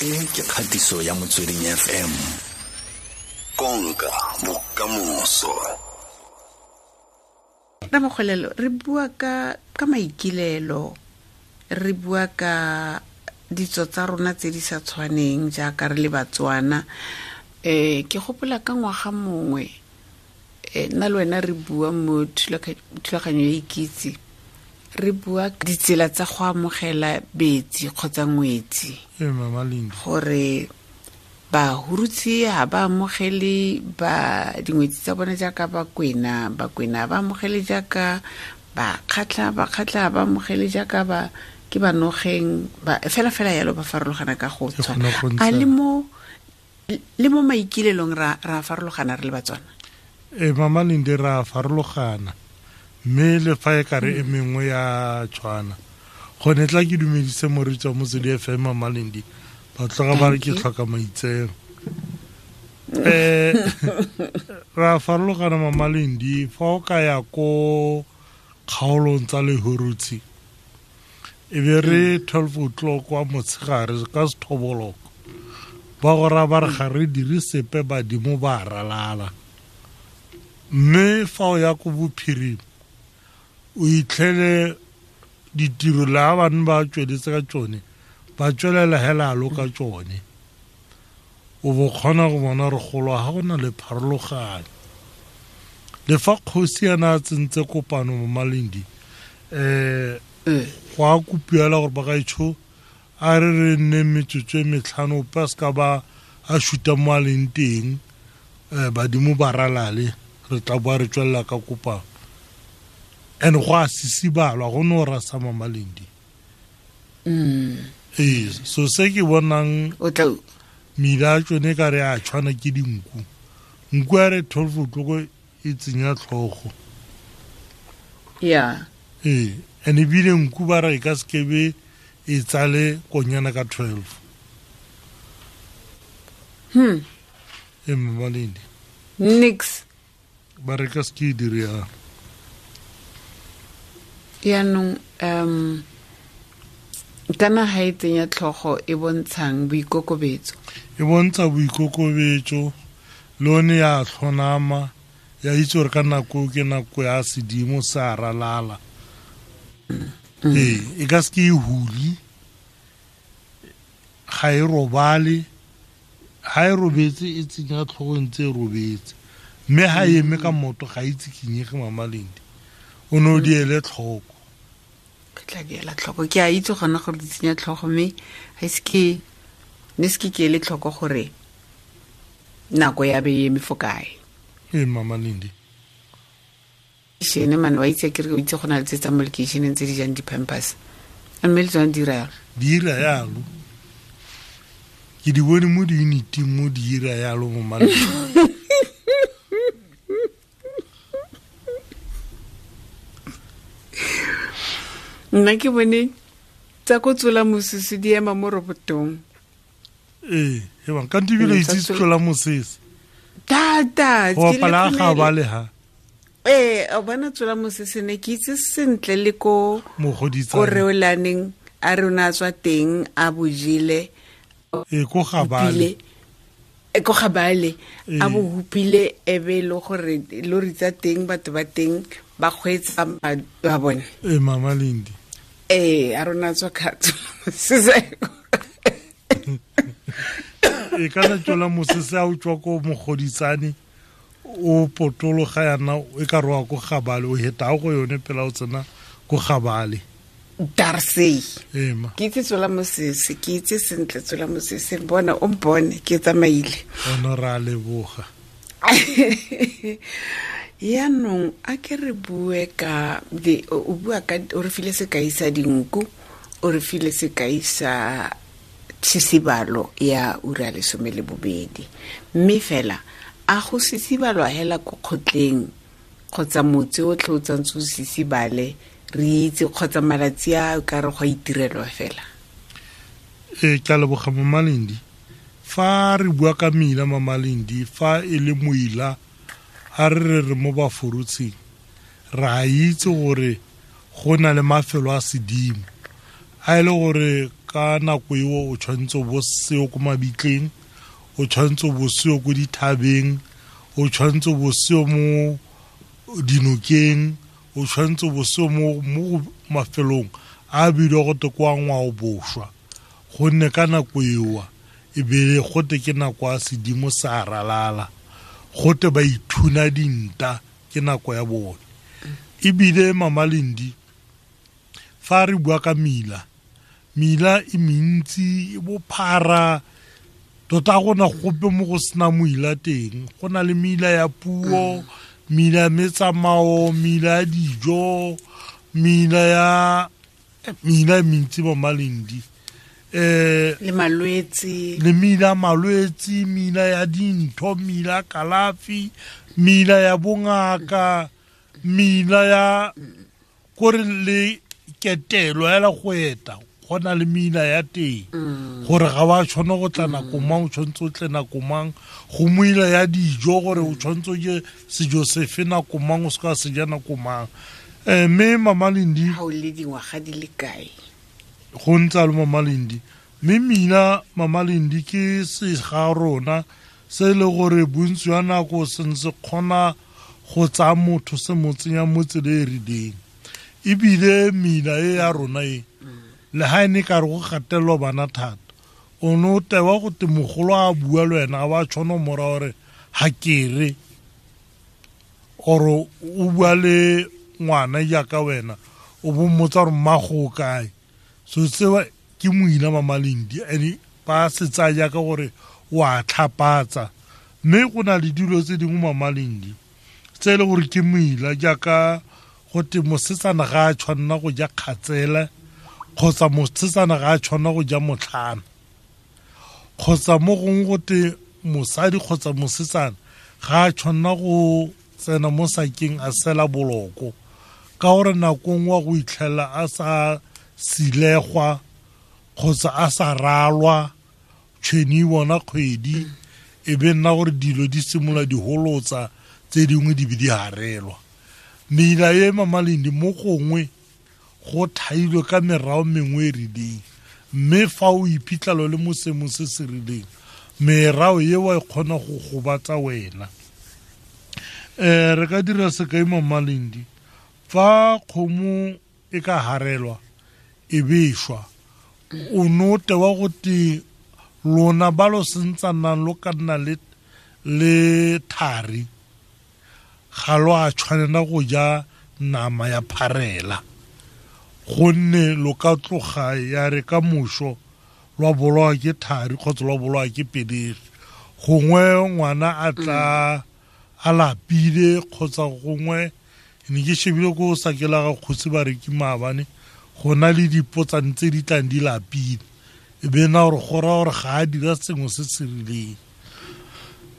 E ke kgatiso ya Motsweding FM. Konka bokamoso. Ramogolelo, re bua ka maikilelo, re bua ka ditso tsa rona tse di sa tshwaneng jaaka re le Batswana. Ke gopola ka ngwaga mongwe, nna le wena re bua mo thulaganyo ya Ikitse, re bua ditsela tsa go amogela betsi kgotsa ngwetsi. Mama Lindy. Gore bahurutsi ha ba amogele ba dingwetsi tsa bone jaaka Bakwena, Bakwena ba amogele jaaka Bakgatla, Bakgatla ba amogele jaaka ba ke Banogeng, ba fela fela yalo ba farologana ka go Ke tshwana. kgona go ntsha. A le mo maikilelong ra farologana re le Batswana? Mama Lindy, ra farologana, mme le fa e kare e mengwe ya tshwana. Gone tla ke dumedise moreetsi wa Motswedi FM, Mama Lindy, ba tloga ba re ke Thank you. tlhoka maitseo. Ra farologana, Mama Lindy, fa o ka ya ko kgaolong tsa Lehurutshi, e be re 12 o'clock wa motshegare ka sethoboloko, ba go raya ba re ga re dire sepe, badimo ba ralala. Mme fa o ya ko bophirima, o itlhele ditiro le ha bane ba tsweletse ka tsone, ba tswelela hela alo ka tsone. O bo kgona go bona re golo ha go na le pharologanyo. Le fa kgosi a na a tsentse kopano mo Malindi, go a kopiela gore bagaetsho a re re nne metsotso e metlhano, ope a seka ba a shuta mo a leng teng, badimo ba ralale, re tla boa re tswelela ka kopano. And go a sisibalwa, go no rasa Mama Lindy. So se ke bonang O tla mila a tsone ka re a tshwana ke dinku. Nku a re 12 o'clock e tsenya tlhogo. And ebile nku ba re e ka se be e tsale konyana ka 12. Mama Lindy. Nix. Ba re ka se ke e dire yang. Yaanong, kana ha e tsenya tlhogo e bontshang boikokobetso. E bontsha boikokobetso, le one ya tlhonama, ya itse gore ka nako ke nako ya sedimo sa ralala. E ka se ke e huli, ga e robale, ha e robetse e tsenya tlhogo ntse e robetse. Mme ha e eme ka moto ga e tsikinyege, Mama Lindy. O ne o di ele tlhoko. Ke tla di ela tlhoko. Ke a itse gona gore di tsenya tlhogo, mme ga ise ke, ne se ke ke ele tlhoko gore nako ya be e eme fo kae. Mama Lindy. Shene man, wa itse ke re o itse go na le tse tsa mo lekeisheneng tse di jang di-pampers. Mme le tsone di dira yalo. Di dira yalo. Ke di bone mo di-uniting mo di dira yalo mo maleng. Nna ke bone tsa ko tsola mosese di ema mo robotong. E bang, ka ntibile itse tsola mosese. Thata, Go ke le bapala ga khonele. ba le ha. O bona tsola mosese ne ke itse sentle le ko Mogoditsane. ko reolaneng a rona a tswa teng a bojele. Ko Gabale. Hupile. Ko Gabale. A bo hupile e be le gore lori tsa teng batho ba teng ba kgweetsa ba bone. Mama Lindy. A rona tswa ka tsola mosese. Kana tsola mosese a o tswa ko Mogoditsane, o potologa yana e ka roa ko Gabale, o heta go yone pela o tsena ko Gabale. Darsey. Ma. Ke itse tsola mosese, ke itse sentle tsola mosese, bona o mpone ke tsamaile. Ono ra leboga. Yaanong a ke re bue ka di, o bua ka, o re file sekai sa dinku, o re file sekai sa tshisibalo ya ura ya lesome le bobedi. Mme fela a go sisibalwa hela ko kgotleng kgotsa motse o tlhe o tsantse o sisibale, re itse kgotsa malatsi a o ka re go a itirelwa fela. Ke a leboga, Mama Lindy. Fa re bua ka mela, Mama Lindy, fa e le moila, a re re re mo Baforotsheng, re a itse gore go na le mafelo a sedimo a e le gore Ka nako eo o tshwanetse o bo seo ko mabitleng, o tshwanetse o bo seo ko dithabeng, o tshwanetse o bo seo mo dinokeng, o tshwanetse o bo seo mo mafelong a bidiwa go te kwa ngwao bošwa, gonne ka nako ewa e be gote ke nako ya sedimo sa ralala, gote ba ithuna dinta ke nako ya bone. Ebile Mama Lendi, fa re bua ka mila, mila e mentsi e bophara tota, gona gope mo go sena moila teng. Go na le mila ya puo, mila ya metsamao, mila ya dijo, mila ya mila e mentsi, Mama Lendi. Le malwetse. Le mila malwetse, mila ya dintho, mila ya kalafi, mila ya bongaka, mila ya kore le ketelo ela go eta, go na le mila ya teng gore ga wa tshwana go tla nako mang, o tshwanetse o tle nako mang. Go moila ya dijo gore o tshwanetse o je sejo sefe nako mang, o se ka se ja nako mang. Mme Mama Lendi, ga o le dingwaga di le kae? Go ntse le Mama Lendi. Mme mina, Mama Lendi, ke sega rona se e le gore bontsi jwa nako se ntse kgona go tsaya motho se mo tsenya mo tsela e rileng. Ebile mina e ya rona e le ga e ne ka re go gatelelwa bana thata, o ne o tewa go te mogolo a bua le wena, a ba tshwana mora gore ga kere oro o bua le ngwana jaaka wena, o bo mmotsa gore mmago o kae. So tsewa ke moina, Mama Lendi, and ba se tsaya jaaka gore o a tlhapatsa. Mme go na le dilo tse dingwe, Mama Lendi, tse e le gore ke moila, jaaka go te mosetsana ga a tshwanela go ja kgatsela, kgotsa mosetsana ga a tshwanela go ja motlhana, kgotsa mo gongwe go te mosadi kgotsa mosetsana ga a tshwanela go tsena mo sakeng a sela boloko, ka gore nako nngwe go itlhela a sa silegwa kgotsa a sa ralwa tšhweni bona kgwedi, e be nna gore dilo di simolola di holotsa, tse dingwe di be di harelwa. Meila e, Mama Lendi, mo gongwe go thailwe ka merao mengwe e rileng, mme fa o iphitlhelo le mo seemong se se rileng, merao eo e kgona go gobatsa wena. Re ka dira sekai, Mama Lendi, fa kgomo e ka harelwa e bešwa, o no tewa go te lona ba lo sentsanang lo ka nna le thari, ga lo a tshwanela go ja nama ya pharela, gonne lo ka tloga ya re ka moso lwa bolawa ke thari kgotsa lwa bolawa ke pelegi, gongwe ngwana a tla a lapile, kgotsa gongwe ne ke shebile ko sakela ga kgosi ba re ke maabane go na le dipotsane tse di tlang di lapile, e be nna gore go raya gore ga a dira sengwe se se rileng.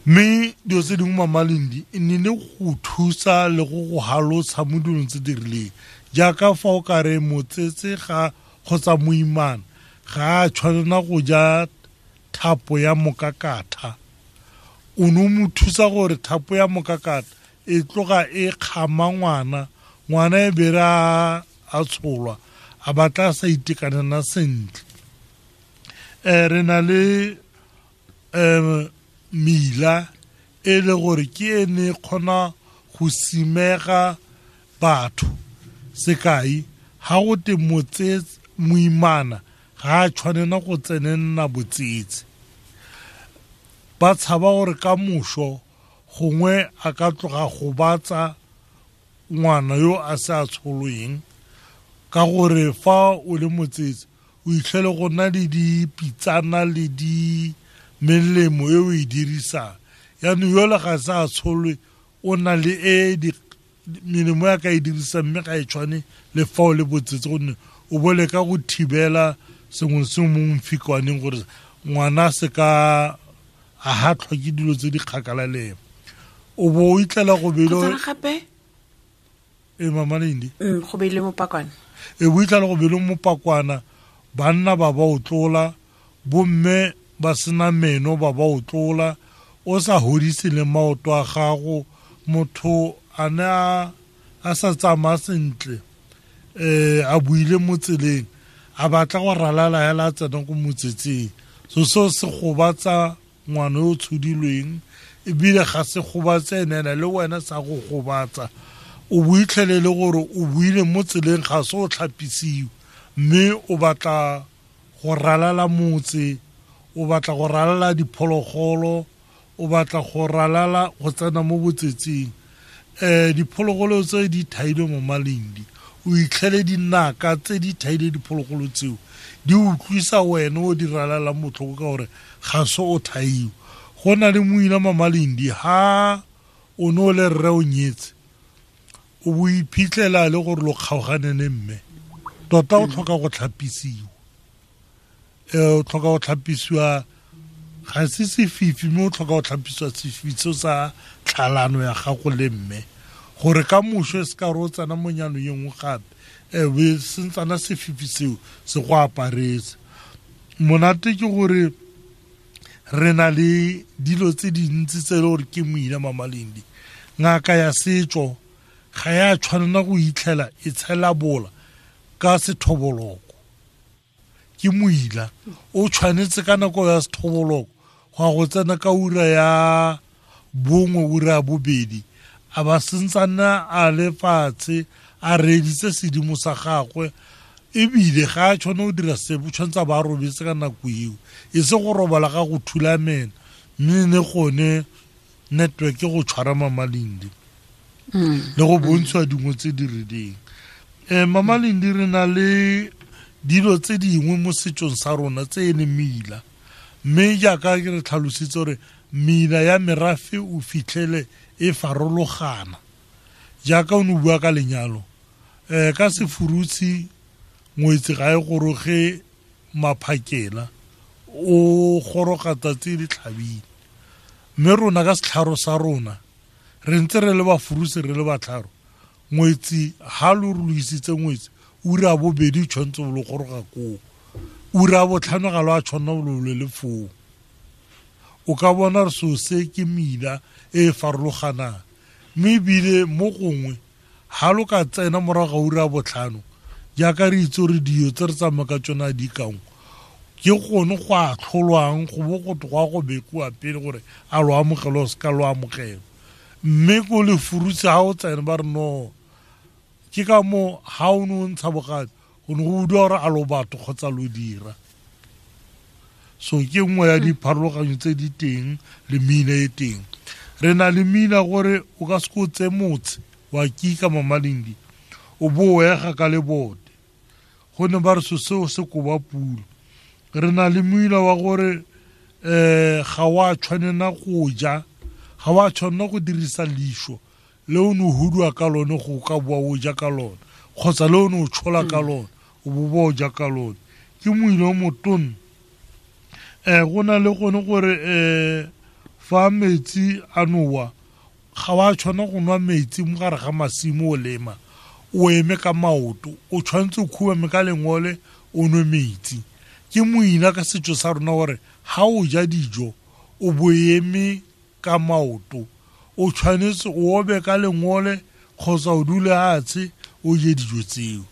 Mme dilo tse dingwe, Mama Lendi, e ne le go thusa le go go halotsha mo dilong tse di rileng, jaaka fa o ka re motsetse ga kgotsa moimana ga a tshwanela go ja thapo ya mokakatha, o ne o mo thusa gore thapo ya mokakatha e tloga e kgama ngwana, ngwana e bere a tsholwa a batla a sa itekanela sentle. Re na le mila e le gore ke ene e kgona go simega batho. Sekai, ga go te moimana ga a tshwanela go tsenenna botsetse, ba tshaba gore ka moso gongwe a ka tloga gobatsa ngwana yo a se a tsholweng, ka gore fa o le motsetse o itlhele go nna le dipitsana le di melemo e o e dirisang, yaanong yole ga se a tsholwe o na le e melemo ya ka e dirisang, mme ga e tshwane le fa o le botsetse, gonne o bo leka go thibela sengwe le sengwe mo mfikwaneng gore ngwana se ka a hatlhwa ke dilo tse di kgakala le ena, o bo o itlela go bele gape. E Mama Lendi. Go beile mopakwana. E bo itlela go beile mopakwana, banna ba ba o tlola, bomme ba sena meno ba ba o tlola, o sa hodise le maoto a gago, motho a ne a sa tsamaya sentle, a buile mo tseleng, A batla go ralala hela a tsena ko motsetseng. So seo se gobatsa ngwana yo o tshodilweng, ebile ga se gobatse ene le wena sa go gobatsa. O boitlhelele gore o buile mo tseleng, ga se o tlhapisiwe, mme o batla go ralala motse, o batla go ralala diphologolo, o batla go ralala go tsena mo botsetseng. Diphologolo tse di thailwe mo maleng, o itlhele dinaka tse di thaile diphologolo tseo di utlwisa wena o di ralalang botlhoko ka gore ga se o thaiwe. Go na le moina mamalindi, ha o ne o le rre o nyetse, o bo iphitlhela le gore lo kgaogane le mme, tota o tlhoka go tlhapisiwa. O tlhoka go tlhapisiwa, ga se sefifi, mme o tlhoka go tlhapisiwa sefifi seo sa tlhalano ya gago le mme, gore ka moso e se ka re o tsena mo nyanong e nngwe gape, be sentsana sefifi seo se go aparetse. Monate ke gore re na le dilo tse dintsi tse e le gore ke moina mamalindi. Ngaka ya setso ga ya tshwanela go itlhela e tshela bola ka sethoboloko. Ke moila o tshwanetse ka nako ya sethoboloko go ya go tsena ka ura ya 1, ura ya 2, a ba sentsana a le fatshe a reeditse sedimo sa gagwe, ebile ga a tshwane go dira sepe, o tshwanetse a ba a robetse ka nako eo, e se go robala ga go thulamela, mme ne gone network go tshwara mamalindi le go bontshiwa dingwe tse di rileng. Mamalindi, re na le dilo tse dingwe mo setsong sa rona tse e leng meila, mme jaaka ke re tlhalositse gore meila ya merafe o fitlhele e farologana. Jaaka o ne o bua ka lenyalo, ka sefurutshi ngwetsi ga e goroge maphakela, o goroga tsatsi le tlhabile. Mme rona ka setlharo sa rona re ntse re le bafurutshi, re le batlharo, ngwetsi ha lo re lo isitse ngwetsi ura ya 2 tshwanetse o lo goroga koo, ura ya 5 ga lo a tshwanela o lo le foo. O ka bona re seo se ke meila e e farologanang, mme ebile mo gongwe ha lo ka tsena morago ga ura ya 5, jaaka re itse gore dio tse re tsamaya ka tsona di kangwe, ke gone go a tlholwang go bo go go a go bekiwa pele gore a lo amogele o se ka lo amogela. Mme ko lefurutse ha o tsena ba re no, ke ka moo ha o ne o ntsha bogadi go ne go utlwa gore a lo batho kgotsa lo dira. So ke nngwe ya dipharologanyo tse di teng le meina e teng. Re na le meina gore o ka se ko tse motse wa kika mamalindi, o bo o ega ka lebote, gonne ba re so seo se koba pulo. Re na le moila wa gore ga wa tshwanela go ja, ga wa tshwanela go dirisa leisho le o ne o hudua ka lone go ka boa o ja ka lone, kgotsa le o ne o tshola ka lone o bo boa o ja ka lone. Ke moila o motona. Go na le gone gore fa metsi a nowa, ga wa tshwanela go nwa metsi mo gare ga masimo o lema, o eme ka maoto, o tshwanetse o khubame ka lengole o nwe metsi. Ke moina ka setso sa rona gore ha o ja dijo o bo eme ka maoto, o tshwanetse o obe ka lengole kgotsa o dule fatshe o je dijo tseo.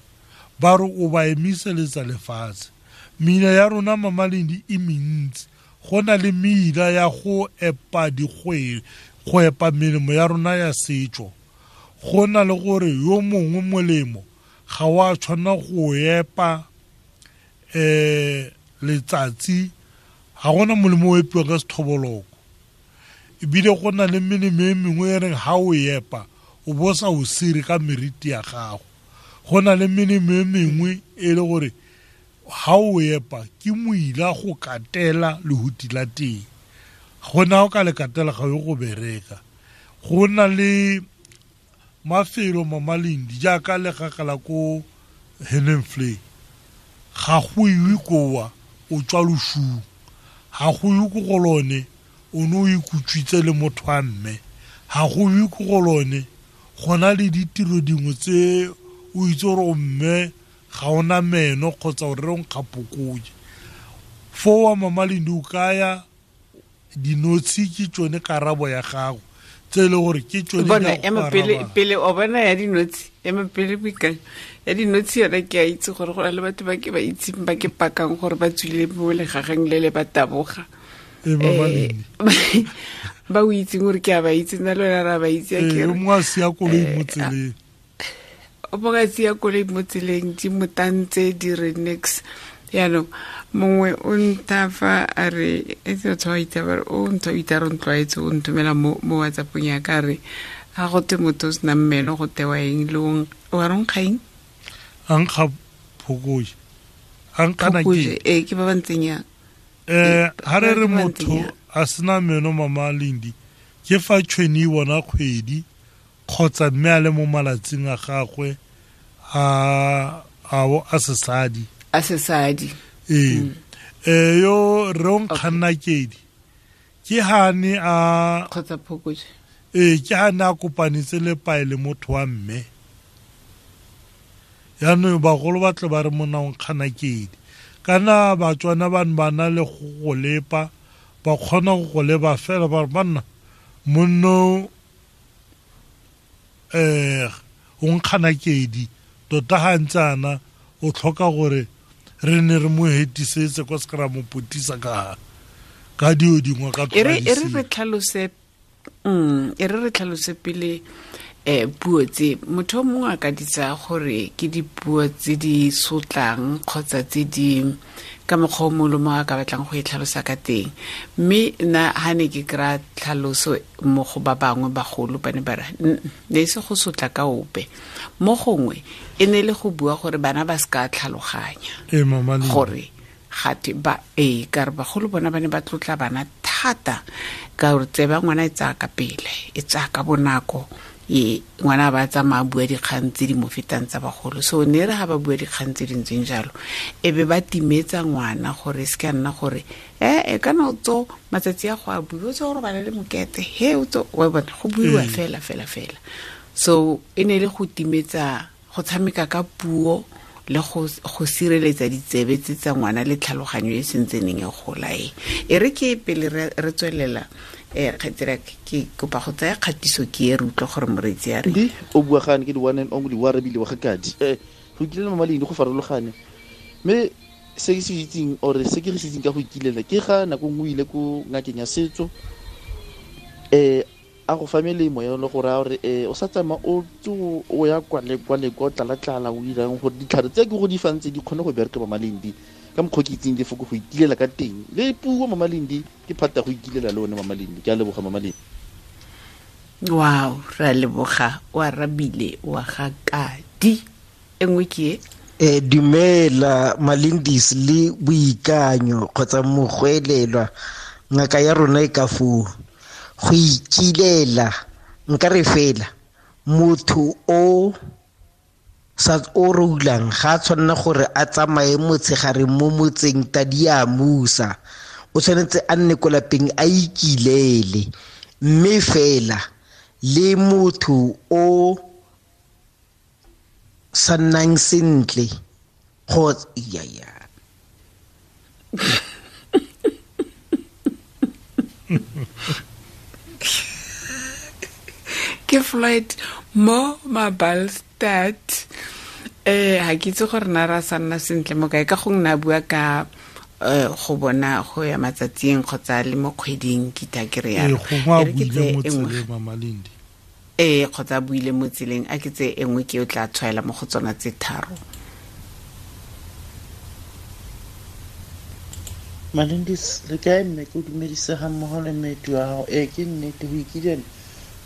Ba re o ba emiseletsa lefatshe. Meila ya rona mamalindi e mentsi. Go na le meila ya go epa dikgwele, go epa melemo ya rona ya setso. Go na le gore yo mongwe molemo ga wa tshwanela go epa letsatsi, ga gona molemo o epiwang ka sethoboloko. Ebile go na le melemo e mengwe e reng ha o epa o bo sa o sire ka meriti ya gago. Go na le melemo e mengwe e le gore ha o epa ke moila go katela lehuti la teng, gona o ka le katela ga yo go bereka. Go na le mafelo mamalindi jaaka legagala ko Helenvlei, ga go iwe koa o tswa losung, ga go iwe ko go lone o ne o ikutswitse le motho wa mme, ga go iwe ko go lone go na le ditiro dingwe tse o itse gore o mme ga ona meno kgotsa o re o nkgapokoje. Foo wa mamalindi o kaya dinotshi ke tsone karabo ya gago Tse e le gore ke tsone. Bona, ema pele pele o bona ya dinotshi, ema pele boikanyo ya dinotshi yona. Ke a itse gore go na le batho ba ke ba itseng ba ke pakang gore ba tswile mo legageng le le ba taboga. Ee, ba o itseng gore ke a ba itse, nna le wena ra ba itse. A kere mongwe a sia koloi mo tseleng. O mongwe a sia koloi mo tseleng, di motantse di re nix. Yaanong mongwe o nthafa a re e tse batho ba itse ba re o ntho itse re ntlwaetse, o nthomela mo WhatsAppong ya ka re ga go te motho o sena mmelo go tewa eng le wa re nkga eng? A nkga phokoje, a nkgana ke ee, ke ba ba ntseng yang. Ha re re motho a sena meno, mama Lendi, ke fa tšhweni e bona kgwedi kgotsa mme a le mo malatsing a gagwe a a sesadi. A sesadi. Ee, yo re o nkganna kedi ke hane a kgotsa phokoje. Ee, ke hane a kopanetse le pae le motho wa mme. Yaanong bagolo ba tle ba re monna o nkgana kedi. Kana Batswana bane ba na le go lepa, ba kgona go go leba fela ba re banna monno o nkgana kedi tota ga ntse ana o tlhoka gore re ne re mo hetisetse kwa se ka ra mo potisa ka dio dingwe ka e re re tlhalose, e re re tlhalose pele puo tse motho o mongwe a ka di tsaya gore ke dipuo tse di sotlang kgotsa tse di ka mokgwa o mongwe le mongwe a ka batlang go e tlhalosa ka teng. Mme nna ha ne ke kry-a tlhaloso mo go ba bangwe bagolo, ba ne ba re ne e se go sotla ka ope, mo gongwe e ne le go bua gore bana ba se ka tlhaloganya gore gate ba ee, ka re bagolo bona ba ne ba tlotla bana thata ka gore tseba ngwana e tsaya ka pele, e tsaya ka bonako, e ngwana ba tsamaya bua dikgang tse di mo fetang tsa bagolo. So ne re ga ba bua dikgang tse di ntseng jalo, e be ba timetsa ngwana gore se ka nna gore e kana o tso matsatsi a go a bua, o tso go robala le mokete, he o tso wa bona go buiwa fela fela fela. So e ne le go timetsa, go tshameka ka puo le go sireletsa ditsebe tse tsa ngwana le tlhaloganyo e sentseneng e gola. E re ke pele re tswelela, kgaitsedi ke kopa go tsaya kgatiso ke e re utlwe gore moreetsi a re di o bua gane ke di one and only wa rebile wa gakadi. Go ikilela mama Lendi go farologane, mme se ke se itseng or se ke se itseng ka go ikilela ke ga nako nngwe ile ko ngakeng ya setso, a go fa melemo ya le go raya gore o sa tsamaya o tso o ya kwa le kwa le kwa tlala-tlala o irang gore ditlhare tse ke go di fang tse di kgone go bereka mama Lendi ka mokgwa ke itseng lefoko go ikilela ka teng le puo mama Lendi ke phata go ikilela le one mama Lendi. Ke a leboga mama Lendi. Wow, re a leboga, o arabile wa ga kadi. E nngwe ke e dumela Malindis le Boikanyo kgotsa mogwelelwa ngaka ya rona e ka foo. Go ikilela nka re fela motho o sa o rulang ga tshwanna gore a tsamaye motshegare mo motseng tadi a musa, o tshwanetse a nne ko lapeng a ikilele. Mme fela le motho o sa nnang sentle kgotsa ya ya ke Floyd mo Mabalstad. Ha ke itse gore na ra sa nna sentle mo kae, ka gongwe na bua ka go bona go ya matsatsing kgotsa le mo kgweding ke tla ke re ya ke tse engwe mama Lendi kgotsa buile mo tseleng, a ke tse engwe ke o tla tshwaela mo go tsona tse tharo. Malindis le kae mme ke o dumedise ga mmogo le mmetu wa gago. Ee, ke nnete go ikilela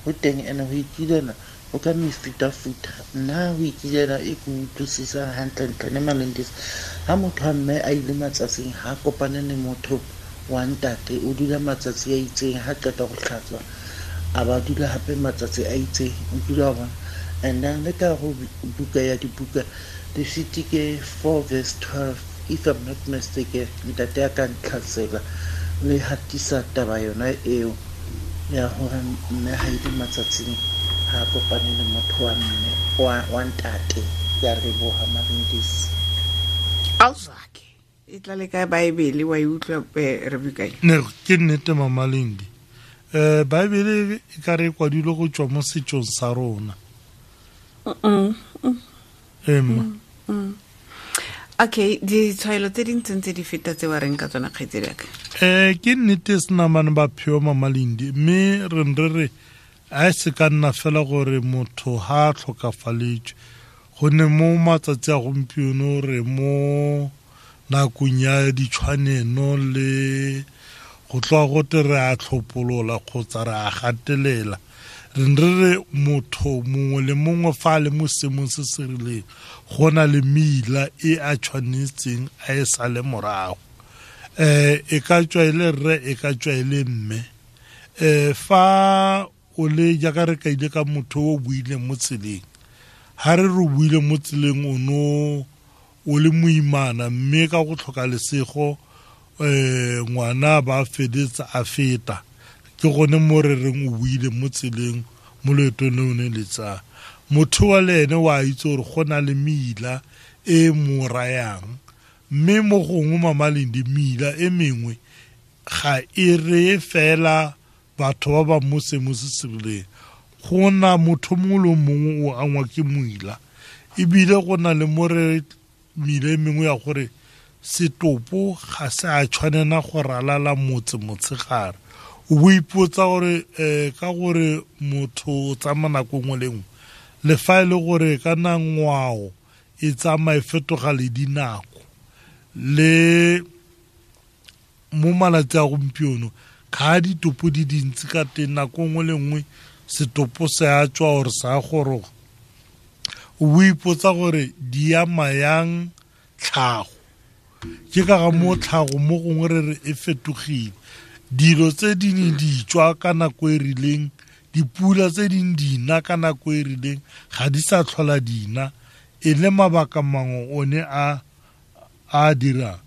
go teng, ene go ikilela o ka mefutafuta. Nna go ikilela e ke utlwisisang hantlentle ne Malindis, ha motho wa mme a ile matsatsing ha kopane le motho wa ntate, o dula matsatsi a itseng, ha qeta go tlhatswa a ba dula hape matsatsi a itseng, o dula wa bona. And then le ka go buka ya dibuka Lefitike 4 verse 12, if I'm not mistaken, ntate a ka ntlhatsela le hatisa taba yona eo ya hore mme ha ile matsatsing ha kopane le motho wa mme wa ntate. Ke a leboha Malindis. Auszake e tla le ka Baebele wa e utlwa re bukae. Ne ke nnete mama Lendi. Baebele e ka re kwadilwe go tswa mo setsong sa rona. Emma. Okay, ditshwaelo tse dintseng tse di feta tse wa reng ka tsona kgaitsedi yaka? Ke nnete senamane ba pheo Mamalindi, mme re re re a se ka nna fela gore motho ha a tlhokafaletswe, gonne mo matsatsi a gompieno re mo nakong ya ditshwaneno le go tloga gote re a tlhopolola kgotsa re a gatelela. Re re re motho mongwe le mongwe fa a le mo seemong se se rileng go na le meila e a tshwanetseng a e sale morago. E ka tswa e le rre, e ka tswa e le mme. Fa o le jaaka re kaile ka motho o buileng mo tseleng, ha re re buile mo tseleng o no o le moimana, mme ka go tlhoka lesego ngwana ba fedetsa a feta, ke gone mo re reng o buile mo tseleng mo loetong le o ne le tsaya. Motho wa le ene wa itse gore go na le meila e mo rayang, mme mo gongwe Mamalindi meila e mengwe ga e reye fela batho ba ba mo seemong se se rileng. Go na motho mongwe le mongwe o angwa ke moila, ebile go na le mo re meila e mengwe ya gore setopo ga se a tshwanela go ralala motse motshegare. O bo ipotsa gore ka gore motho o tsamaya nako nngwe le nngwe, le fa e le gore ka na ngwao e tsamaya e fetoga le dinako, le mo malatsi a gompieno ga ditopo di dintsi ka teng, nako nngwe le nngwe setopo se a tswa gore sa goroga. O bo ipotsa gore di ama yang tlhago. Ke ka ga mo tlhago mo gongwe re re e fetogile. Dilo tse di ne di tswa ka nako e rileng, dipula tse ding di na ka nako e rileng, ga di sa tlhola di na, e le mabaka mangwe one a dirang.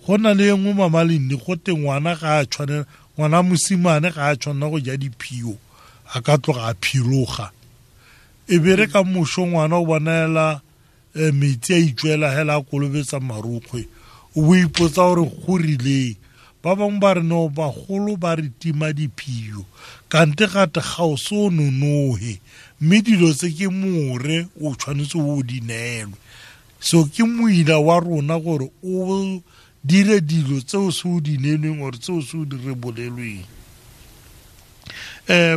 Go na le e nngwe Mamalindi, go te ngwana ga a tshwanela, ngwana mosimane ga a tshwanela go ja diphio, a ka tloga a phiroga. E be re ka moso ngwana o bonela metsi a itswela hela a kolobetsa marokgwe, o bo ipotsa gore go rileng. Ba bangwe ba re no, bagolo ba re tima diphio, kante gate ga o se o nonohe, mme dilo tse ke more o tshwanetse o di neelwe. So ke moila wa rona gore o dire dilo tse o se o di neelweng or tse o se o di rebolelweng.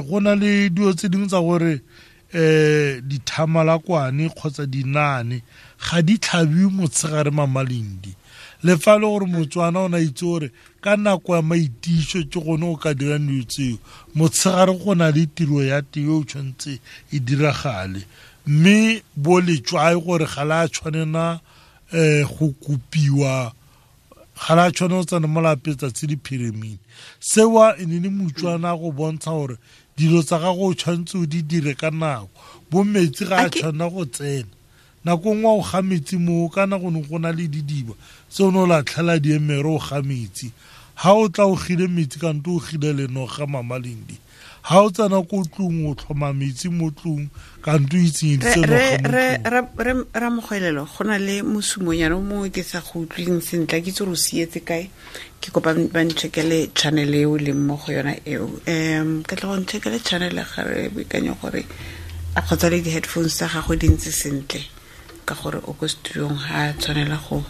Go na le dilo tse dingwe tsa gore dithamalakwane kgotsa dinaane ga di tlhabiwe motshegare Mamalindi. Le fa e le gore Motswana o ne a itse gore ka nako ya maitiso ke gone o ka dirang dilo tseo, motshegare go na le tiro ya teng e o tshwanetse e diragale. Mme bo letswai gore ga la tshwanela go kopiwa, ga la tshwanela go tsena mo lapeng tsatsi le phirimile. Seo e ne le Motswana go bontsha gore dilo tsa gago o tshwanetse o di dire ka nako. Bo metsi ga a tshwanela go tsena. Nako nngwe o ga metsi moo, kana go ne go na le didiba tse o ne o latlhela diemere o ga metsi. Ha o tla o gile metsi kante o gile lenoga Mamalindi. Ha o tsena ko tlung o tlhoma metsi mo tlung kante o itsenyeditse noga mo tlung. Ramogwelelo, go na le mosumonyana o mongwe ke sa go utlweng sentle, ke itse gore o sietse kae. Ke kopa ba ncheckele channel eo leng mo go yona eo. Ke tla go ncheckele channel ga re boikanyo gore a kgotsa le di-headphones tsa gagwe di ntse sentle, ka gore o ko studiong ha tshwanela go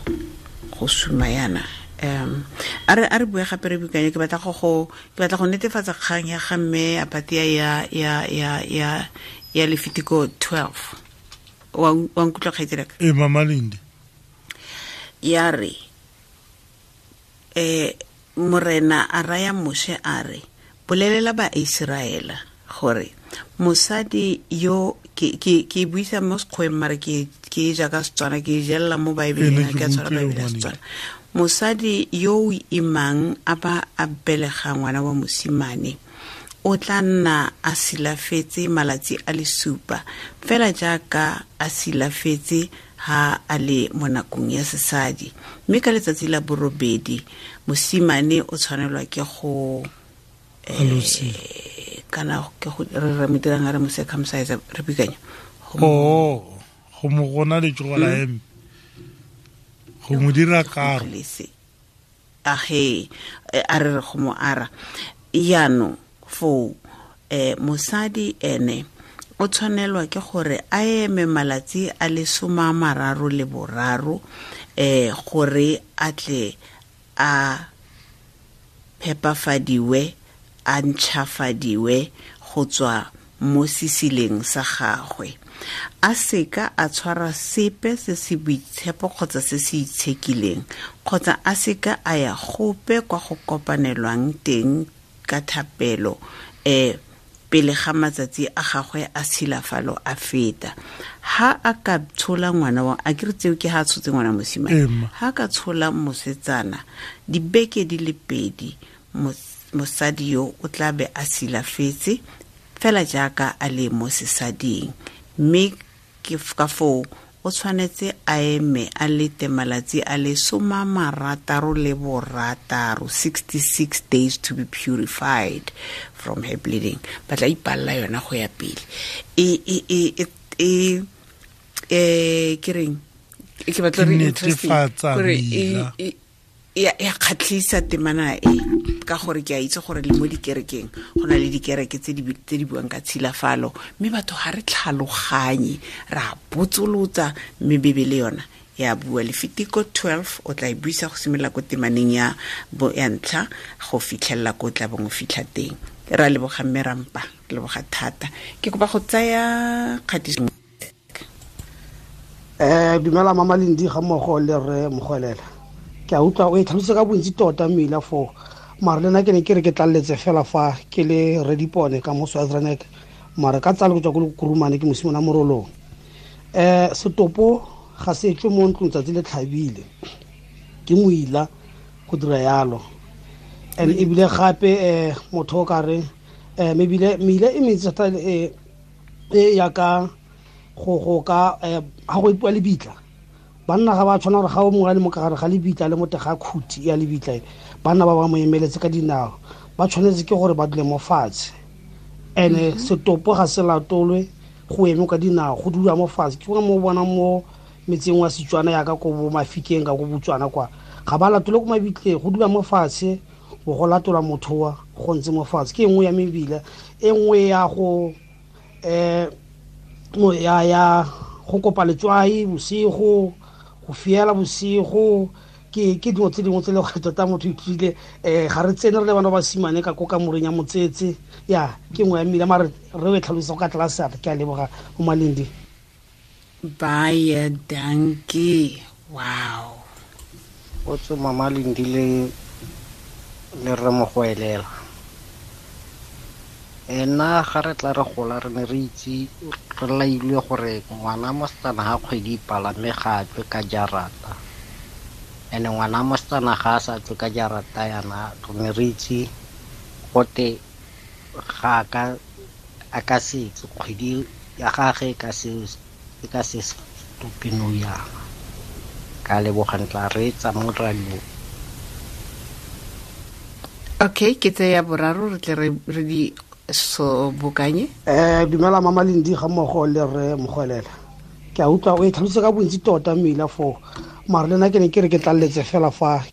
suma yana. A re bue gape re boikanyo, ke batla go netefatsa kgang ya ga mme Apatia ya Lefitiko 12. Wa nkutlwa kgaitsedi ka? Mamalindi. Ya re Morena a raya Moshe a re, bolelela ba Iseraela gore mosadi yo ke buisa mo sekgweng mare ke jaaka Setswana, ke jella mo Baebeleng, ke a tshwara Baebele ya Setswana. Mosadi yo o imang a ba a belega ngwana wa mosimane o tla nna a silafetse malatsi a le supa, fela jaaka a silafetse ha a le mo nakong ya sesadi. Mme ka letsatsi la borobedi mosimane o tshwanelwa ke go kana ke go re mo dirang a re mo circumcise, re bikanya go mo gona letsogo la eme, go mo dira karo. Age a re go mo ara. Yaanong Foo mosadi ene o tshwanelwa ke gore a eme malatsi a le 33 gore a tle a phepafadiwe, a ntšhafadiwe go tswa mo sesileng sa gagwe. A seka a tshwara sepe se se boitshepo kgotsa se se itshekileng, kgotsa a seka a ya gope kwa go kopanelwang teng ka thapelo pele ga matsatsi a gagwe a tshilafalo a feta. Ha a ka tshola ngwana wa, a ke re tseo ke ha a tshotse ngwana mosimane, ha ka tshola mosetsana dibeke di le 2, mosadi yo o tla be a silafetse fela jaaka a le mo sesading. Mme ke ka foo o tshwanetse a eme a lete malatsi a le 66, 66 days to be purified from her bleeding. Ba tla ipalla yona go ya pele. Ke reng? Ke batla re interesting gore ya kgatlhisa temana e, ka gore ke a itse gore le mo dikerekeng go na le dikereke tse di buang ka tshilafalo, mme batho ga re tlhaloganye, ra botsolotsa, mme Bibele yona ya bua. Lefitiko 12 o tla e buisa go simolola ko temaneng ya ya ntlha go fitlhelela ko tla bong o fitlha teng. Ra leboga mme Rampa, re leboga thata. Ke kopa go tsaya kgatiso. Dumela Mama Lindi ga mmogo le rre Mogwelela. Ke a utlwa o e tlhalose ka bontsi tota mmila foo, mare le nna ke ne ke re ke tlaleletse fela fa ke le Redipone ka mo Swaziland, mare ka tsalo go tswa ko Kurumane ke mosimane Morolong. Setopo ga se tswe mo ntlong tsatsi le tlhabile, ke moila go dira yalo. And ebile gape motho o ka re mebile meila e mentsi thata e ya ka go ka ga go ipuwa lebitla. Banna ga ba tshwana gore ga o mongwe a le mo ka gare ga lebitla le mo teng ga khuti ya lebitla, banna ba ba mo emeletse ka dinao, ba tshwanetse ke gore ba dule mo fatshe. And setopo ga se latolwe go eme ka dinao, go dula mo fatshe. Ke mo bona mo metseng wa Setswana yaka ko bo Mafikeng ka ko Botswana kwa, ga ba latole ko mabitleng, go dula mo fatshe, bo go latola motho wa go ntse mo fatshe. Ke e nngwe ya mebila, e nngwe ya go ya go kopa letswai bosigo, go fiela bosigo, ke dilo tse dingwe tse le gore tota motho ithutile. Ga re tsene re le bana ba basimane ka ko kamoreng ya motsetse, ya ke nngwe ya mmila, mare re o e tlhalosa go ka tlase. Ke a leboga mo Malindi. Baie dankie. Wow. O tswe Mama Lindi le rre Mogwelela. Nna ga re tla re gola re ne re itse re lailwe gore ngwana mosetsana ga kgwedi ipala mme ga a tswe ka jarata. And ngwana mosetsana ga a sa tswe ka jarata yana, re ne re itse gote ga a ka se tswe, kgwedi ya gagwe e ka se stope nou yana. Ka leboga, ntla reetsa mo radio. Okay, ke tseya boraro re tle re di so bokanye. Dumela Mama Lindi ga mmogo le rre Mogwelela. Ke a utlwa o e tlhalose ka bontsi tota mmila foo, mare le nna ke ne ke re ke tlaleletse fela fa.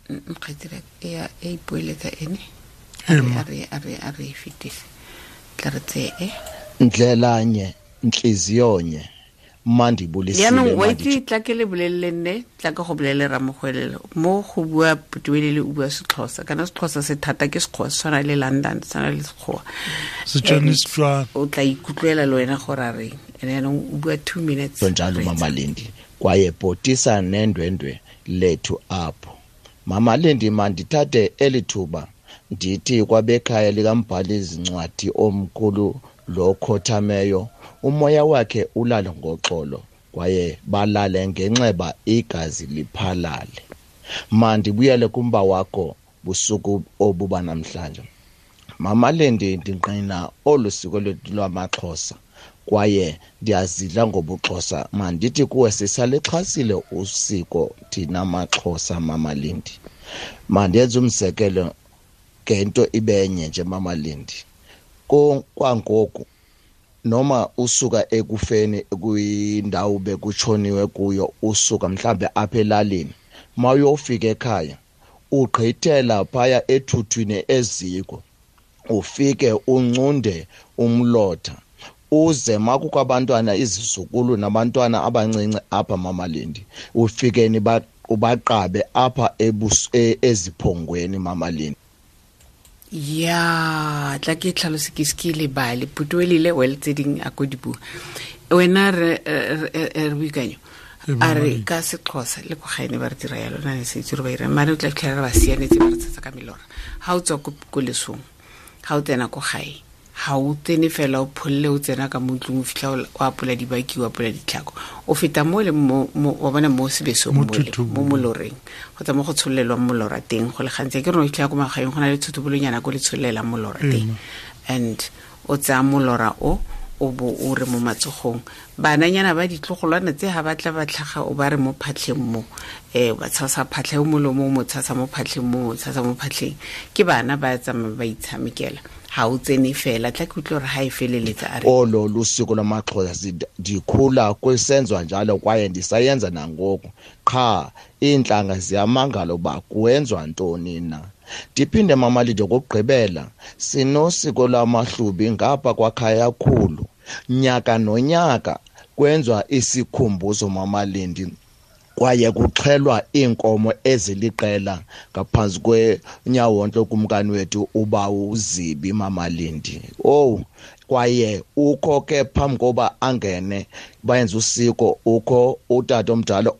Nkgetsela ya e ipoeletsa ene. A re fetise. Tla re tseye. Ndlelanye ntliziyonye mandibulisile. Jaanong wa itse tla ke le bolelele nne, tla ke go bolelele Ramogwelelo mo go bua Putuelele o bua Sexhosa, kana Sexhosa se thata ke Sekgowa, se tshwana le London, se tshwana le Sekgowa. Setswana. O tla ikutlwela le wena gore a reng. Ene jaanong o bua 2 minutes. Njalo Mama Lindi, kwaye bhotisa nendwendwe lethu apho. Mama Lindi, mandithathe eli thuba ndithi kwabekhaya likambhali izincwadi omkhulu lo khothameyo, umoya wakhe ulale ngoxolo kwaye balale ngenxeba igazi liphalale. Mandibuyele kumba wakho busuku obuba namhlanje. Mama Lindi, ndingqina olu siko lwethu lwamaXhosa kwaye ndiyazidla ngobuXhosa. Mandithi kuwe sisalixhasile usiko thina maXhosa. Mama Lindi, mandenze umzekelo ngento ibenye nje Mama Lindi. Kwangoku noma usuka ekufeni kwindawo bekutshoniwe kuyo, usuka mhlambe apha elalini, mawuyofika ekhaya Ugqithela phaya ethuthwini eziko, ufike uncunde umlotha, uze makukho abantwana, izizukulu nabantwana abancinci apha Mamalindi, ufike ubaqabe apha eziphongweni Mamalindi. Ya, tla ke tlhalose ke se ke lebale putuelile well tse ding a ko di bua wena re boikanyo a re ka Sexhosa le ko gaene ba re dira yalo na ne se itse re ba ira mare o tla fitlhela re ba sianetse ba re tsatsa ka melora. Ha o tswa ko lesong, ha o tsena ko gae, ha o tsene fela o pholle, o tsena ka mo ntlong, o fitlha o apola dibaki, o apola ditlhako, o feta mo le mo, wa bona mo sebesong Mo mo le, thutubong. mo moloreng kgotsa mo go tsholelwang molora teng. Go le gantsi ke re o fitlhela ko magaeng go na le thutubulonyana ko le tsholelang molora teng, and o tsaya molora o, o bo o re mo matsogong. Bananyana ba ditlogolwana tse ha ba tla ba tlhaga, o ba re mo phatlheng mo, ba tshasa phatlha o molomo, o mo tshasa mo phatlheng mo, o tshasa mo phatlheng. Ke bana ba tsamaya ba itshamekela, ha o tsene fela. Tla ke utlwe hore ha e feleletsa a re Olo lusiko lwamaXhosa ndikhula kwisenzwa njalo kwaye ndisayenza nangoku, qha iintlanga ziyamangala uba kuwenzwa ntoni na. Ndiphinde Mamalindi okokugqibela, sinosiko lwamaHlubi ngapha kwaKhayakhulu. Nyaka nonyaka kwenziwa isikhumbuzo Mamalindi, kwaye kuxhelwa iinkomo eziliqela ngaphantsi kwenyawontle kumkani wethu ubawo uZibi Mamalindi. Owu, kwaye ukho ke phambi koba angene bayenze usiko, ukho utata omdala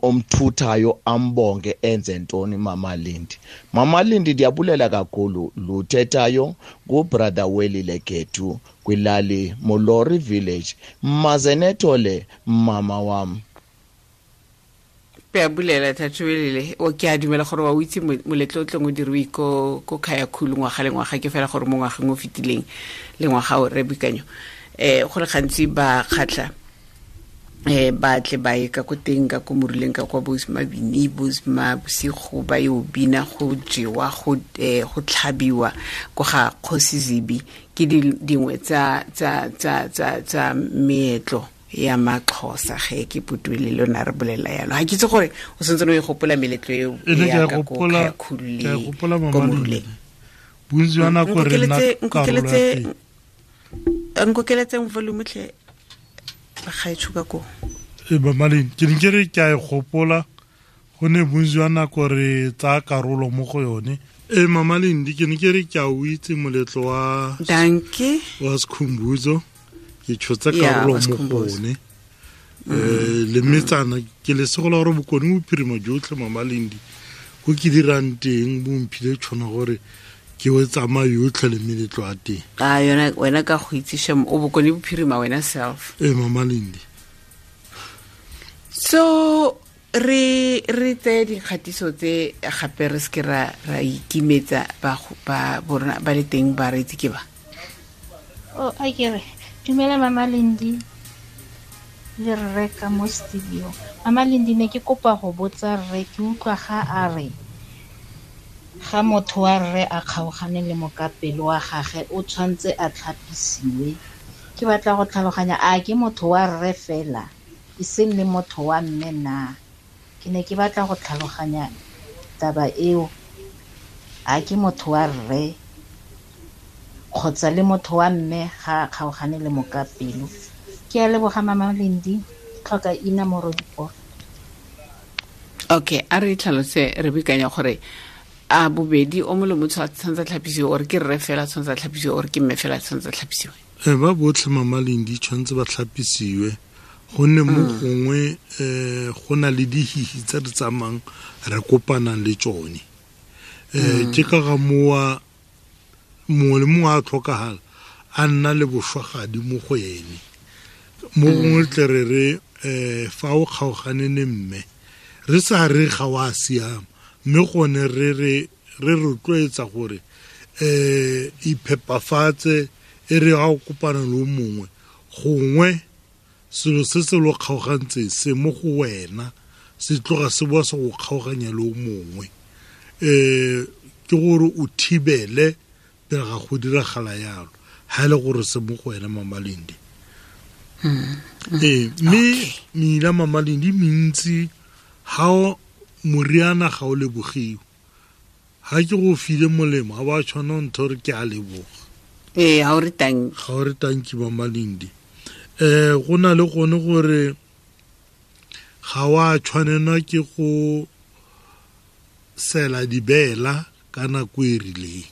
omthuthayo ambonge enze ntoni Mamalindi. Mamalindi ndiyabulela kakhulu luthethayo ngubrother Welile Gethu kwilali Molori Village. Maze nethole mama wam. Ke a bulela Thato Welile, o ke a dumela gore wa o itse moletlo o tlong o diriwe ko Khayakhulu ngwaga le ngwaga, ke fela gore mo ngwageng o fetileng le ngwaga o re boikanyo. Go le gantsi ba kgatlha, ba tle ba ye ka ko teng, ka ko moruleng, ka kwa bo Mabini, bo Mabosigo, ba yo bina, go jewa, go tlhabiwa ko ga Kgosi Zibi. Ke dingwe tsa meetlo ya maXhosa ge ke putuele le lona re bolela yalo. Ha ke itse gore o santse o e gopola meletlo eo E ne ke ya a ka ko gopola, Khayakhulu ke a le gopola ko Mama Moruleng. Lindi. Bontsi jwa nako re nna karolo ya teng. Nkokeletseng volume tlhe, bagaetsho ka koo. Ee, Mama Lindi, ke ne ke re ke a e gopola, gonne bontsi jwa nako re tsaya karolo mo go yone. Ee, Mama Lindi, ke ne ke re ke a o itse moletlo Dankie. wa Sikhumbuzo, ke tshotse Ya, karolo wa mo go Sikhumbuzo. one. Le metsana, ke lesego la gore bokone bophirima jotlhe Mama Lindi, ko ke dirang teng bo mphile tšhono gore ke o tsamaya yotlhe le meletlo ya teng. A yona wena ka go itse shem, o bokone bophirima wena self. Ee, Mama Lindi. So re tseye dikgatiso tse gape re seke ra ikimetsa ba borona ba le teng ba re itse ke ba. Oh, a ke re dumela Mama Lindi le rre ka mo studio. Mama Lindi, ne ke kopa go botsa rre, ke utlwa ga a re ga motho wa rre a kgaogane le mokapelo wa gagwe o tshwantse a tlhapisiwe. Ke batla go tlhaloganya, a ke motho wa rre fela e seng le motho wa mme na? Ke ne ke batla go tlhaloganya taba eo, a ke motho wa rre kgotsa le motho wa mme ga a kgaogane le mokapelo. Ke a leboga Mama Lindi, ke tlhoka ina morodiporo. Okay, a re tlhalose re boikanya gore a bobedi o mongwe le motho a tshwanetse a tlhapisiwe, or ke rre fela a tshwanetse a tlhapisiwe, or ke mme fela a tshwanetse a tlhapisiwe? Ba botlhe Mama Lindi tshwanetse ba tlhapisiwe, gonne mo gongwe, go na le dihihi tse re tsamayang re kopanang le tsone. Ke ka ga mowa mongwe le mongwe a tlhokagala a nna le bošwagadi mo go ene. Mo gongwe tle re re, fa o kgaogane le mme, re sa re ga wa siama, mme gone re rotloetsa gore, iphepafatse, e re ga o kopana le o mongwe, gongwe selo se se lo kgaogantseng se mo go wena se tloga se boa se go kgaoganya le o mongwe. Ke gore o thibele pele ga go diragala yalo, ha e le gore se mo go wena Mama Lindi. Mme meila Mama Lindi mentsi, ha o moriana ga o lebogiwe. Ga ke go file molemo ga ba tshwana ntho re ke a leboga. Ee, ga o re tanki. Ga o re tanki Mama Lindi. Go na le gone gore ga wa tshwanelwa ke go sela dibela ka nako e rileng.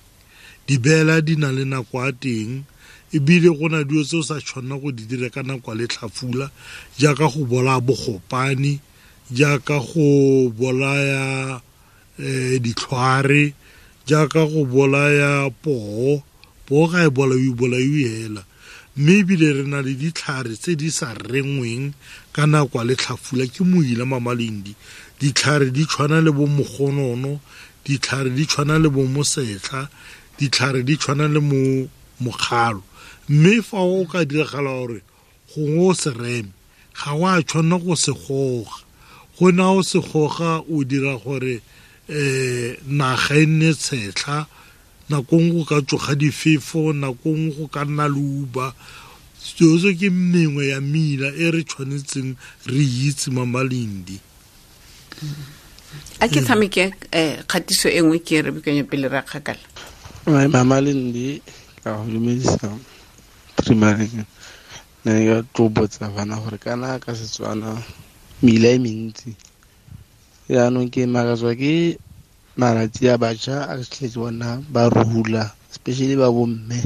Dibela di na le nako ya teng, ebile go na dilo tse o sa tshwanela go di dira ka nako ya letlhafula, jaaka go bolaya bogopane, jaaka go bolaya ditlhware, jaaka go bolaya poo. Poo ga e bolaiwe, bolaiwe hela. Mme ebile re na le ditlhare tse di sa rengweng ka nako ya letlhafula, ke moila Mama Lindi. Ditlhare di tshwana le bo mogonono, ditlhare di tshwana le bo mosetlha, ditlhare di tshwana le mo mokgalo. Mme fa o ka diragala gore gongwe o se reme, ga o a tshwanela go se goga. Go na o se goga o dira gore naga e nne tshetlha, nako nngwe go ka tsoga difefo, nako nngwe go ka nna leuba. Seo se ke mengwe ya mela e re tshwanetseng re itse Mama Lindi. A ke tshameke kgatiso e nngwe ke re bikanya pele ra kgakala. Mama Lindi, ka go dumedisa primary. Ne ke tlo botsa bana gore kana ka Setswana mela e mentsi. Jaanong ke makatswa ke malatsi a batjha a tletse bona ba rula, especially ba bomme.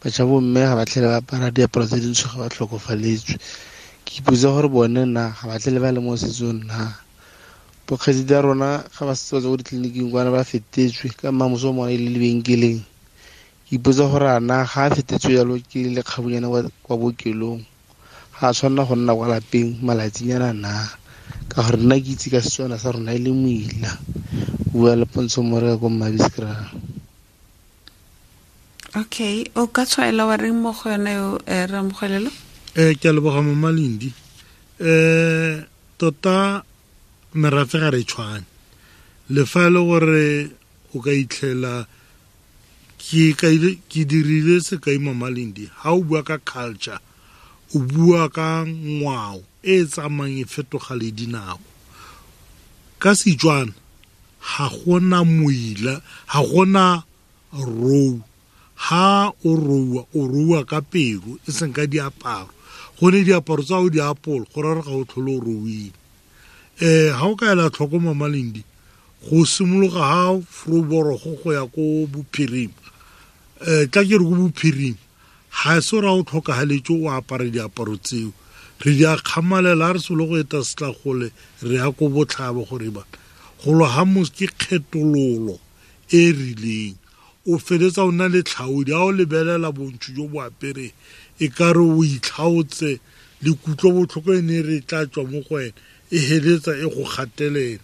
Batjha bomme ga ba tlhele ba apara diaparo tse dintsho ga ba tlhokofaletswe. Ke ipotsa gore bone na ga ba tlhele ba le mo setsong na. Bokgaitsedi a rona ga ba setse ba tswa ko ditleliniking kwana ba fetetswe ka mmamoso o mongwe e le lebenkeleng. Ke ipotsa gore a na ga a fetetswe jalo ke lekgabunyana kwa bookelong, ga a tshwanela go nna kwa lapeng malatsinyana na, ka gore nna ke itse ka Setswana sa rona e le moila. Bua le Pontsho Moreka ko Mmabiskra. Okay, o ka tshwaela wa reng mo go yone eo, Ramogwelelo? Ke a leboga Mama Lindi. Tota merafe ga re tshwane. Le fa e le gore o ka itlhela ke dirile sekai Mama Lindi, ha o bua ka culture, o bua ka ngwao e tsamayang e fetoga le dinako. Ka Setswana ga gona moila, ga gona rou. Ha o roua, o roua ka pelo, e seng ka diaparo. Gone diaparo tsa o di apola, go raya gore ga o tlhole o rouile. Ha o ka ela tlhoko Mama Lindi, go simologa ha Vroborogo go ya ko bophirima. Tla ke re ko bophirima, ga se gore ha o tlhokagaletse o apare diaparo tseo. Re di a kgamalela, ha re solo go eta setlagole, re ya ko botlhaba gore ba. Go lwa ha mos ke kgethololo e rileng. O feletsa o nna le tlhaodi, ha o lebelela bontsho jo bo apereng, e ka re o itlhaotse le kutlobotlhoko e ne re tla tswa mo go wena, e heletsa e go gatelela.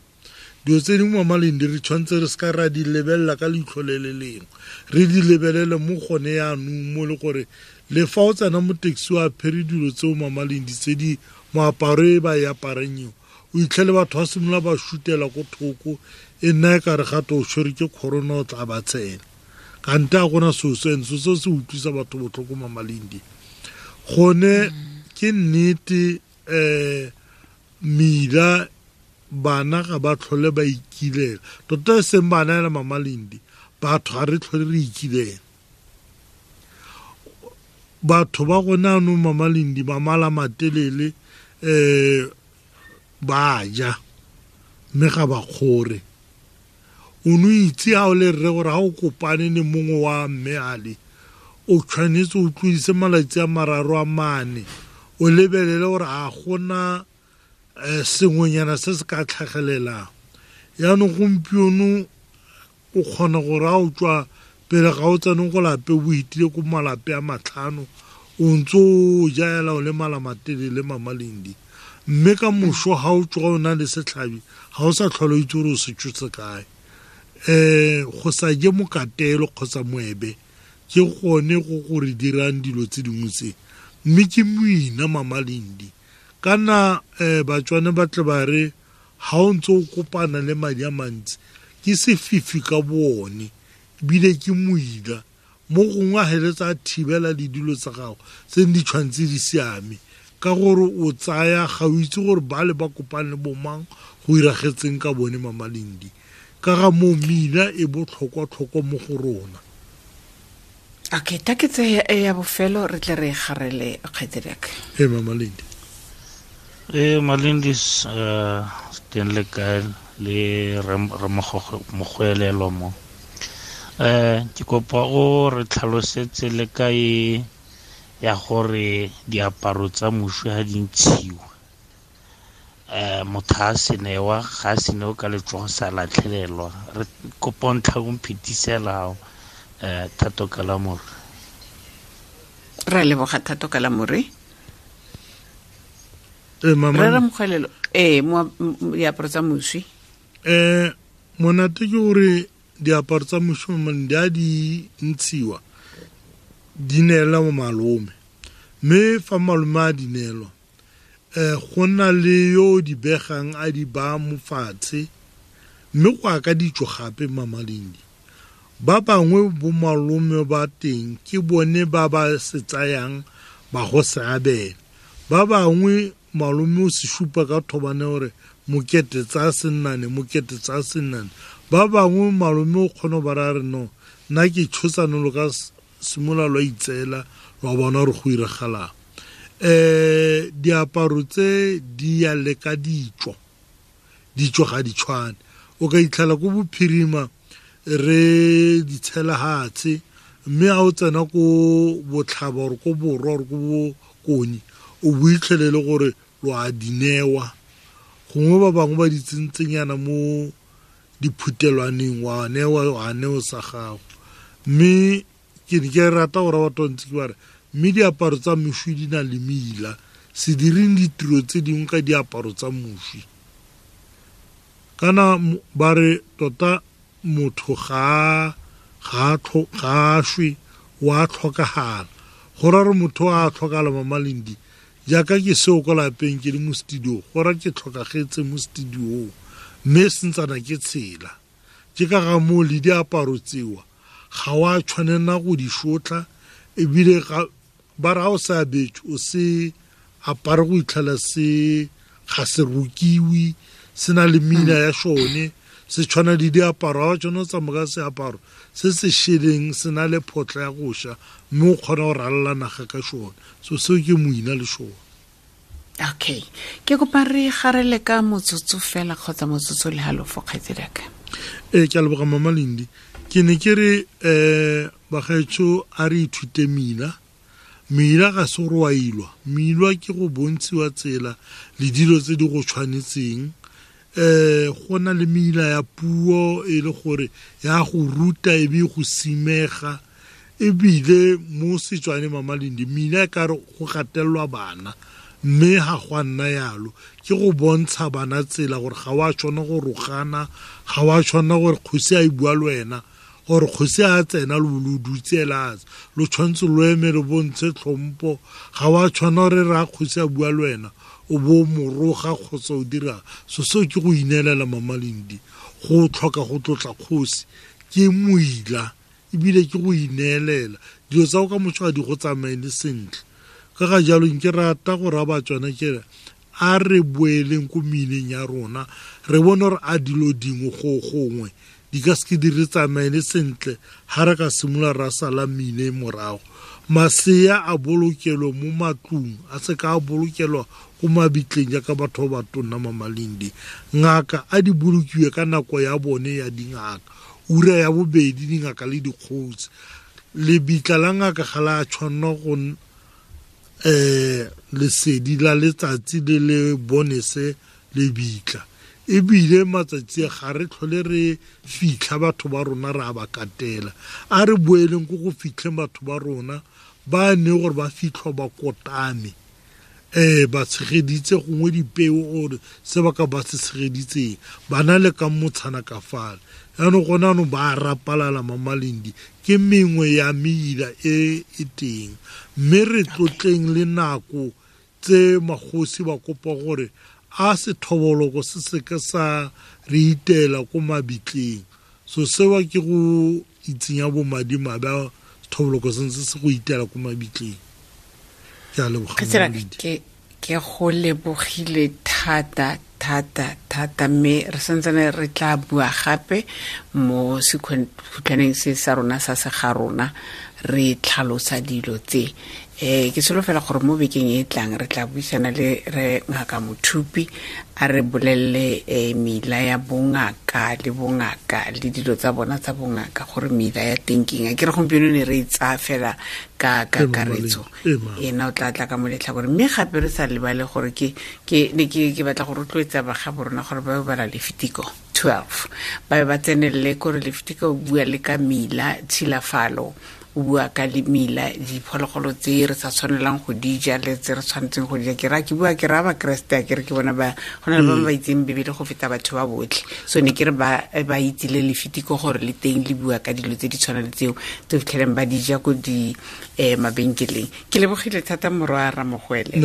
Dilo tse dingwe Mama Lindi re tshwanetse re seka ra di lebelela ka leitlho le le lengwe, re di lebelele mo gone yaanong mo le gore le fa o tsena mo taxi o apere dilo tseo Mama Lindi tse di moaparo e ba e aparang eo, o itlhele batho ba simolola ba shutela ko thoko, e nna e kare gape o tshwerwe ke corona o tla ba tsena. Kante a gona seo se, seo se se utlwisa batho botlhoko Mama Lindi. Gone ke nnete, mela bana ga ba tlhole ba ikilela. Tota e seng bana ela Mama Lindi, batho ga re tlhole re ikilela. Batho ba gone anong Mama Lindi ba mala matelele, ba ja mme ga ba kgore. O no itse ha o le rre gore ha o kopane le mongwe wa mme ale, o tshwanetse o tlodise malatsi a mararo a mane, o lebelele gore a gona sengwenyana se se ka tlhagelelang. Yaanong gompieno o kgona gore ha o tswa pele ga o tsene go lape o itile ko malape a matlhano, o ntse o jaela o le mala matelele Mama Lindi. Mme ka moso ha o tsoga o na le setlhabi, ga o sa tlhole o itse gore o se tshotse kae. Go sa je mokatelo kgotsa moebe ke gone go go re dirang dilo tse dingwe tse. Mme ke moina Mama Lindi. Kana Batswana ba tle ba re ha o ntse o kopana le madi a mantsi ke sefifi ka boone, ebile ke moila. Mo gongwe a heletsa a thibela le dilo tsa gago tse di tshwanetse di siame, ka gore o tsaya ga o itse gore ba le ba kopane le bomang go iragetseng ka bone Mama Lindi. Ka ga moo meila e botlhokwa-tlhokwa mo go rona. Okay, ta ke tse ya bofelo re tle re garele kgaitsediaka. Ee, Mama Lindi. Ee, Malindis, teng le kae le Ramogwelelo mo. Ke kopa o re tlhalosetse le kae ya gore diaparo tsa moswi ha di ntshiwa. Motho a se newa, ga a se newa ka letsogo sa latlhelelwa. Re kopa o ntlha o mphetisela Thato Kalamore. Re leboga Thato Kalamore. Mama. Re Ramogwelelo, mo diaparo tsa moswi. Monate ke gore diaparo tsa moswi di a di ntshiwa, di neelwa mo malome. Mme fa malome a di neelwa, go na le yo di begang a di baya mo fatshe, mme go ya ka ditso gape Mama Lindi. Ba bangwe bo malome ba teng ke bone ba ba se tsayang ba go se abela. Ba bangwe malome o se supa ka thobane gore mokete tsa sennane, mokete tsa sennane. Ba bangwe malome o kgona ba ra re no, nna ke tshosane lo ka simolola lwa itseela lwa bona gore go iragalang. Diaparo tse di ya le ka ditso, ditso ga di tshwane. O ka itlhela ko bophirima re di tshela hatshe, mme ha o tsena ko botlhaba or ko borwa or ko bokone, o bo itlhelele gore lo a di newa. Gongwe ba bangwe ba di tsentsenyana mo diphutelwaneng, wa newa, wa neo sa gago. Mme ke ne ke rata gore batho ba ntse ke ba re, mme diaparo tsa moswi di na le meila, se direng ditiro tse dingwe ka diaparo tsa moswi. Kana ba re tota motho ga a shwe, wa tlhokagala. Go ra gore motho a tlhokagala Mama Lindi, jaaka ke seo ko lapeng ke le mo studio, go ra ke tlhokagetse mo studio, mme sentsana ke tshela. Ke ka ga moo le diaparo tseo ga wa tshwanela go di shotla, ebile ba re ha o sa abetswe, o se apare go itlhela se ga se rokiwe, se na le meina ya sone, se tshwana le diaparo. Ha o tshwana o tsamaya ka seaparo se se šeleng, se na le photla ya go ša, mme o kgona go ralala naga ka sone. So seo ke moina le sone. Okay, ke kopa re garele ka motsotso fela kgotsa motsotso le halofo, kgaitsediaka. Ke a leboga Mama Lindi. Ke ne ke re, bagaetsho, a re ithute meila. Meila ga se gore wa ilwa. Meilwa ke go bontshiwa tsela le dilo tse di go tshwanetseng. Go na le meila ya puo e le gore ya go ruta e be go simega, ebile mo Setswaneng Mama Lindi meila e ka re go gatelelwa bana, mme ga go a nna yalo. Ke go bontsha bana tsela gore ga wa tshwana go rogana, ga wa tshwana gore kgosi a e bua le wena, gore kgosi a tsena lo lo dutse la lo tshwanetse lo eme lo bontshe tlhompo. Ga wa tshwana gore ra kgosi a bua le wena o bo moroga kgotsa o dira so. Seo ke go ineelela Mama Lindi, go tlhoka go tlotla kgosi ke moila, ebile ke go ineelela. Dilo tsa go ka motho ga di go tsamaele sentle. Ka ga jalo nke rata go raya Batswana ke re a re boeleng ko meileng ya rona, re bone gore a dilo dingwe go gongwe di ka seke di re tsamaele sentle ha re ka simolola ra sala meile morago. Masea a bolokelwe mo matlong, a se ka a bolokelwa ko mabitleng jaaka batho ba ba tonna Mama Lindi. Ngaka a di bolokiwe ka nako ya bone ya dingaka, ura ya bobedi dingaka le dikgosi. Lebitla la ngaka ga la tshwanela go lesedi la letsatsi le le bonese lebitla. Ebile matsatsi a ga re tlhole re fitlha batho ba rona re a ba katela. A re boeleng ko go fitlheng batho ba rona ba ne gore ba fitlhwa ba kotame, ba tshegeditse gongwe dipeo or se ba ka ba se tshegeditseng, ba na le ka motshana ka fale. Jaanong gone jaanong ba rapalala Mama Lindi, ke mengwe ya meila e e teng. Mme re tlotleng le nako tse magosi ba kopa gore a sethoboloko se seke sa re itela ko mabitleng. So seo ke go itsenya bomadimabe a sethoboloko se ntse se go itela ko mabitleng. Ke a leboga, Kgaitsedi, Mama Lindi. ke go lebogile thata thata thata, mme re santsane re tla bua gape mo sekhutlhaneng se sa rona sa se ga rona, re tlhalosa dilo tse. Ke solofela gore mo bekeng e tlang re tla buisana le re Ngaka Mothupi, a re bolelele mela ya bongaka le bongaka le dilo tsa bona tsa bongaka, gore mela ya teng ke eng. A ke re gompieno ne re e tsaya fela ka kakaretso, ena o tla tla ka mo letlhakoreng. Mme gape re sa lebale gore ke ne ke batla go rotloetsa baga borona gore ba bala Lefitiko 12, ba be ba tsenelele kore Lefitiko o bua le ka mela tshilafalo, o bua ka mela diphologolo tse re sa tshwanelang go di ja le tse re tshwanetseng go di ja. Ke ra ke bua ke ra Bakreste, a ke re ke bona ba go na le ba ba itseng Bibele go feta batho ba botlhe. So ne ke re ba itse le Lefitiko gore le teng le bua ka dilo tse di tshwanang le tseo tse fitlheleng ba di ja ko di mabenkeleng. Ke lebogile thata morwa Ramogwele.